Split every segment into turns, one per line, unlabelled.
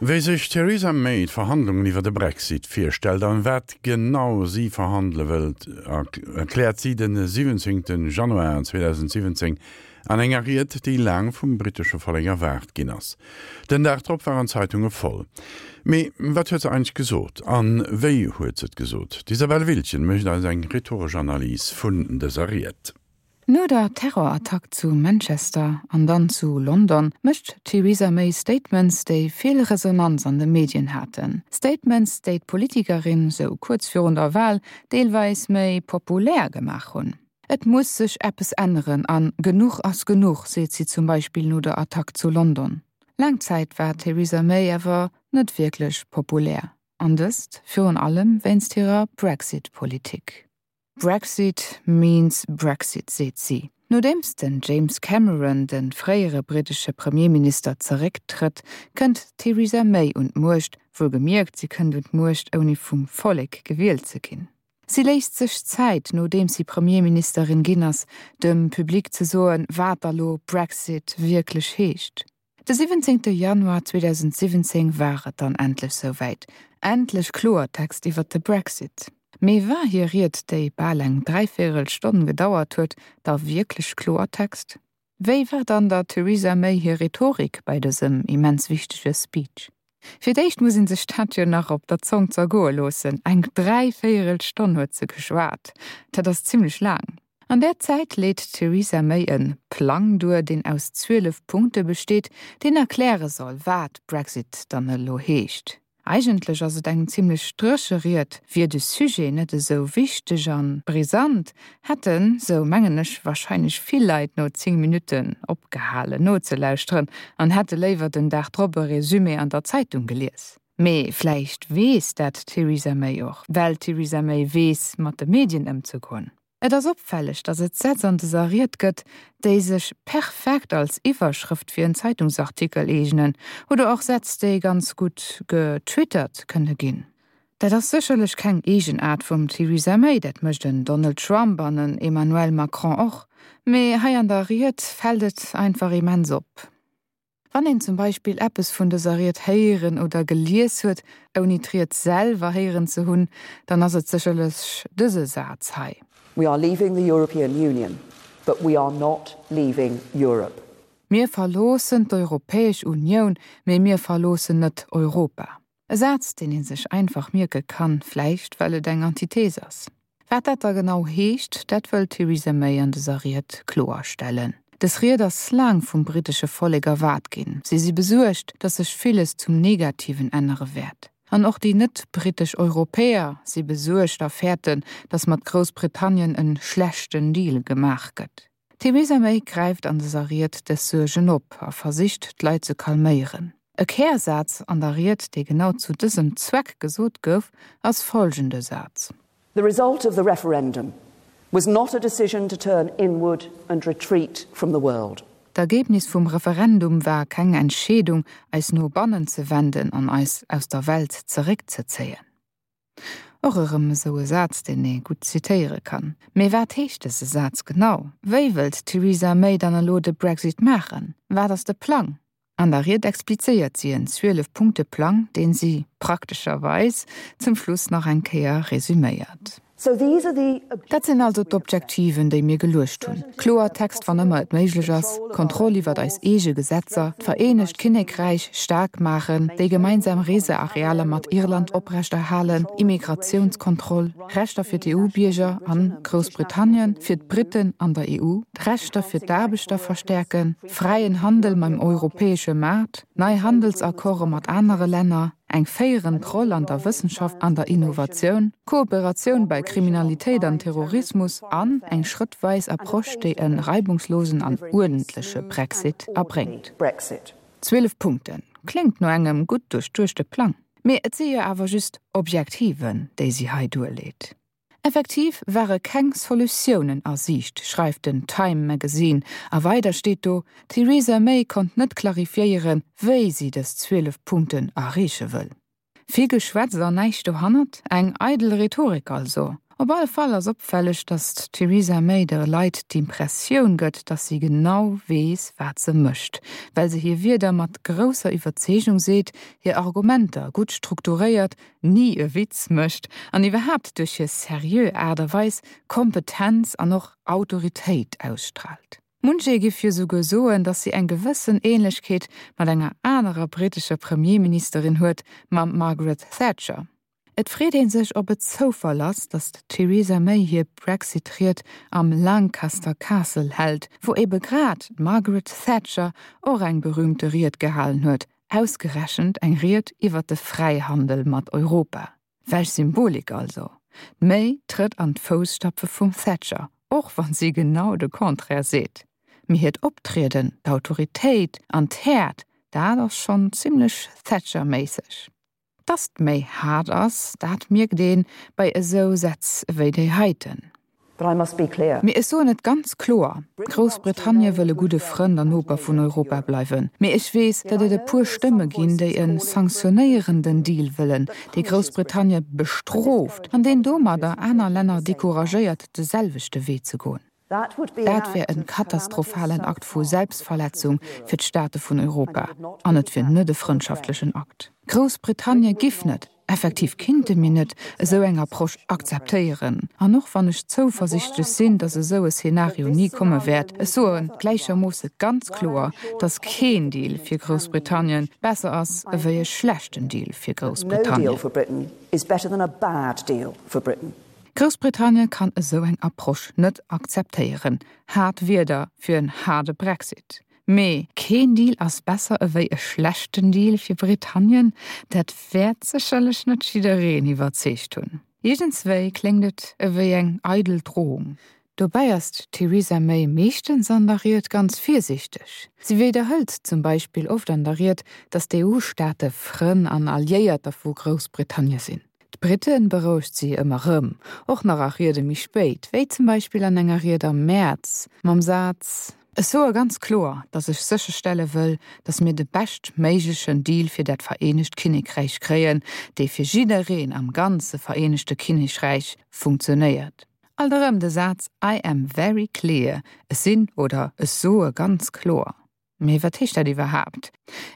Wéi sech d'Theresa May d'Verhandlungen iwwer de Brexit virstellt an wat genau si verhandele wëllt, erkläert si de 17 Januar 2017 an enger Ried, déi laang vum brittesche Vollek erwaart ginn ass. Den Dag drop waren d'Zeitunge voll. Mee wat huet se eigentlech gesot an wéi huet se et gesot? D'Isabelle Wiltgen mécht eis eng rhetoresch Analys vun dëser Ried.
No der Terrorattack zu Manchester an dann zu London mécht d'Theresa May Statements, déi vill Resonanz an de Medien haten. Statements, déi d'Politikerin, sou kuerz virun der Wal, deelweis méi populär gemaach hunn. Et muss sech eppes änneren an genuch ass genuch, seet si zum Beispill no der Attack zu London. Laang Zäit war d'Theresa May awer net wierklech populär, an dëst virun allem wéinst hirer Brexit-Politik. Brexit means Brexit, seet si. Nodeems den James Cameron, de fréiere brittesche Premierminister, zerécktrëtt, kënnt d'Theresa May un d'Muecht, wuelgemierkt, si kënnt un d'Muecht ouni vum Vollek gewielt ze ginn. Si léisst sech Zäit, nodeems si Premierministerin ginn ass, dem Public ze soen, wat da lo Brexit wierklech heescht. De 17 Januar 2017 war et dann endlech souwäit, endlech Kloertext iwwert de Brexit. Mee war hir Ried, déi bal eng dräivéierel Stonn gedauert huet, da wierklech Kloertext? Wéi war dann der Theresa May hir Rhetorik bei dësem immens wichtege Speech? Fir d'éischt muss een sech dat jo nach op der Zong zergoe loossen, eng dräivéierel Stonn huet se geschwat, dat ass zimmlech laang. An där Zäit leet d'Theresa May e Plang duer, deen aus 12 Punkte besteet, deen erkläre soll, wat Brexit dann elo heescht. Eigentlech ass et eng zimmlech dréche Ried. Wier de Sujet net esou wichteg a brisant, hätten, sou mengen ech, warscheinlech vill Leit no 10 Minutten opgehalen nozelauschteren an hätte léiwer den Dag drop e Resumé an der Zeitung gelies. Mee vläicht weess dat d'Theresa May och, well d'Theresa May weess mat de Medien ëmzegoen. Et ass opfälleg, datt et Sätz an dëser Ried gëtt, déi sech perfekt als Iwwerschrëft fir en Zeitungsartikel eegnen, oder och Sätz, déi ganz gutt getwittert kënne ginn. Dat ass sécherlech keng Eegenaart vum Theresa May, dat mécht en Donald Trump an en Emmanuel Macron och, mee hei an der Ried fält et einfach immens op. Wann een zum Beispill eppes vun dëser Ried héieren oder gelies huet, ouni d'Ried selwer héieren ze hunn, dann ass et sécherlech dëse Saz hei.
We are leaving the European Union, but we are not leaving Europe.
Mir verloossen d'Europäesch Unioun, mee mir verloossen net Europa. E Saz, deen ee sech einfach mierke kann, vläicht well et eng Antithese ass. Wat dat da genau heescht, dat wëll d'Theresa May an dëser Ried kloerstellen. Dës Ried ass laang vum brittesche Vollek erwaart ginn. Si si besuergt, datt sech villes zum Negativen ännere wäert. An och déi net-brittesch Europäer si besuergt a fäerten, datt mat Groussbritannien en schlechten Deal gemaach gëtt. D'Theresa May gräift an dëser Ried dës Suergen op a versicht, d'Leit ze calméieren. E Kärsaz an der Ried, dee genau zu dësem Zweck gesot gouf, ass folgende Saz.
The result of the referendum was not a decision to turn inward and retreat from the world.
D'Ergebnis vum Referendum war keng Entscheedung, eis no bannen ze wenden an eis aus der Welt zeréckzezéien. Och erëm esou e Saz, deen ee gutt zitéiere kann. Mee wat heescht dëse Saz genau? Wéi wëllt d'Theresa May dann elo de Brexit maachen? Wat ass de Plang? An der Ried explizéiert si en 12 Punkte Plang, deen si, praktescherweis, zum Schluss nach eng Kéier resüméiert. Dat sinn also d'Objektiven, déi mir geluecht hunn, Kloertext, wann ëmmer et méiglech ass, Kontroll iwwert eis eege Gesetzer, d'Vereenegt Kinnekräich staark maachen, déi gemeinsam Researealer mat Irland oprechterhalen, Immigratiounskontroll, Rechter fir d'EU-Bierger an Groussbritannien, fir d'Britten an der EU, d'Rechter fir d'Aarbechter verstäerken, fräien Handel mam europäesche Maart, nei Handelsaccorde mat anere Länner, eng féierend Roll an der Wëssenschaft an der Innovatioun, Kooperatioun bei Kriminalitéit an Terrorismus an eng schrëttweis Approche, déi e reibungslosen an uerdentleche Brexit erbréngt. 12 Punkten, kléngt no engem gutt duerchduechte Plang. Mee et si jo awer just Objektiven, déi si hei duerleet. Effektiv ware keng Solutiounen a Siicht, schreift den Time Magazine, a weider steet do, D'Theresa May konnt net clarifiéieren, wéi si dës 12 Punkten erreeche wëll. Vill Geschwätz an näischt dohannert, eng eidel Rhetorik also. Op alle Fall ass opfälleg, datt d'Theresa May de Leit d'Impressioun gëtt, datt si genau weess, wat se mécht, well se hir Wierder mat grousser Iwwerzeegung seet, hir Argumenter gutt strukturéiert, ni e Witz mécht an iwwerhaapt duerch hir seriö Aart a Weis Kompetenz an och Autoritéit ausstraalt. Munch ee giff jo souguer soen, datt si eng gewëssen Ähnlechkeet mat enger anerer brittescher Premierministerin huet, mam Margaret Thatcher. Et freet ee sech, ob et Zoufall ass, datt d'Theresa May hir Brexit-Ried am Lancaster Castle hält, wou ebe grad d'Margaret Thatcher och eng berüümte Ried gehalen huet, ausgerechent eng Ried iwwer de Fräihandel mat Europa. Welch Symbolik also! D'May trëtt an d'Fousstapfe vum Thatcher, och wann si genau de Contraire seet. Mee hiert Optrieden, d'Autoritéit an d'Häert, dat ass schonn zimmlech Thatcher-méisseg. Dass d'Méi haart ass, dat mierkt ee bei esou Sätz ewéi déi heiten. Mee ech soen et ganz kloer, Groussbritannie wëll e gudde Frënd an Noper vun Europa bleiwen. Mee ech weess, datt et e puer Stëmme ginn, déi e sanktionéierenden Deal wëllen, dee Groussbritannie bestrooft an deen domadder aner Länner decouragéiert, de selwechte Wee ze goen. Dat wär e katastrophalen Akt vu Selbstverletzung fir d'Staate vun Europa an et wier net e frëndschaftlechen Akt. Groussbritannie giff net, effektiv kinnte mir net, esou eng Approche akzeptéieren. An och wann ech zouversichtlech sinn, datt esou e Szenario ni komme wäert, ech soe gläichermoosse ganz kloer, datt keen Deal fir Groussbritannien besser ass ewéi e schlechten Deal fir Groussbritannien. Groussbritannien kann esou eng Approche net akzeptéieren. Haart Wierder fir en haarde Brexit. Mee keen Deal ass besser ewéi e schlechten Deal fir Britannien, dat wäert sécherlech net jiddereen iwwerzeegt hunn. Iergendswéi kléngt et ewéi eng eidel Drohung. Dobäi ass d'Theresa May meeschtens an der Ried ganz virsiichteg. Si widderhëlt zum Beispill oft an der Ried, datt d'EU-Staate Frënn an Alliéierter vu Groussbritannie sinn. D'Britte berouegt si ëmmer rëm, och nach a Riede méi spéit, wéi zum Beispill an enger Ried am Mäerz mam Saz, Ech soe ganz kloer, datt ech sécherstelle wëll, datt mir de beschtméiglechen Deal fir dat Vereenegt Kinnekräich kréien, dee fir jiddereen am ganze Vereenegte Kinnekräich funktionéiert. Alt erëm de Saz I am very clear, ech sinn oder ech soe ganz kloer. Mee wat heescht dat iwwerhaapt?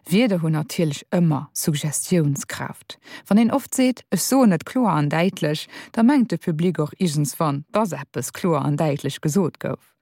Wierder hunn natierlech ëmmer Suggestiounskraaft. Wann een oft seet, ech soen et kloer an däitlech, da mengt de Public och iergendswann, dass eppes kloer an däitlech gesot gouf.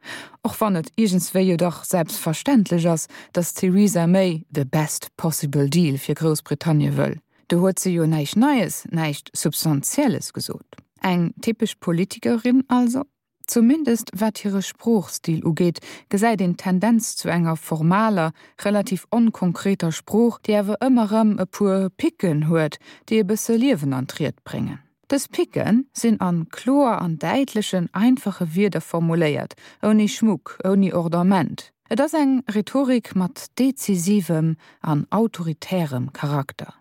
Och wann et iergendswéi jo dach selbstverständlech ass, dass d'Theresa May the best possible deal fir Groussbritannie wëll. Do huet se jo näischt Neies, näischt Substantielles gesot. Eng typesch Politikerin also? Zumindest wat hire Sproochstil ugeet, gesäit een d'Tendenz zu enger formaler, relativ onkonkreter Sprooch, déi awer ëmmer erëm e puer Picken huet, déi e bësse Liewen an d'Ried bréngen. Dës Picke sinn a kloer an däitlechen, einfache Wierder formuléiert, ouni Schmuck, ouni Ordament. Et ass eng Rhetorik mat dezisivem an autoritärem Charakter.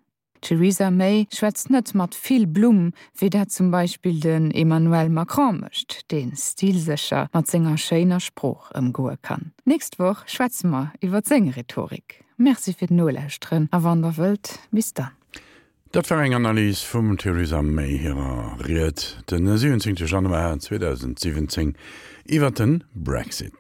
D'Theresa May schwätzt net mat vill Blumm, wéi dat zum Beispill den Emmanuel Macron mécht, dee stilsécher mat senger schéiner Sprooch ëmgoe kann. D'nächst Woch schwätze mer iwwer seng Rhetorik. Merci fir d'Nolauschteren a wann der wëllt, bis dann.
Dat war eng Analys vum Theresa May hirer Ried den 17 Januar 2017 iwwer de Brexit.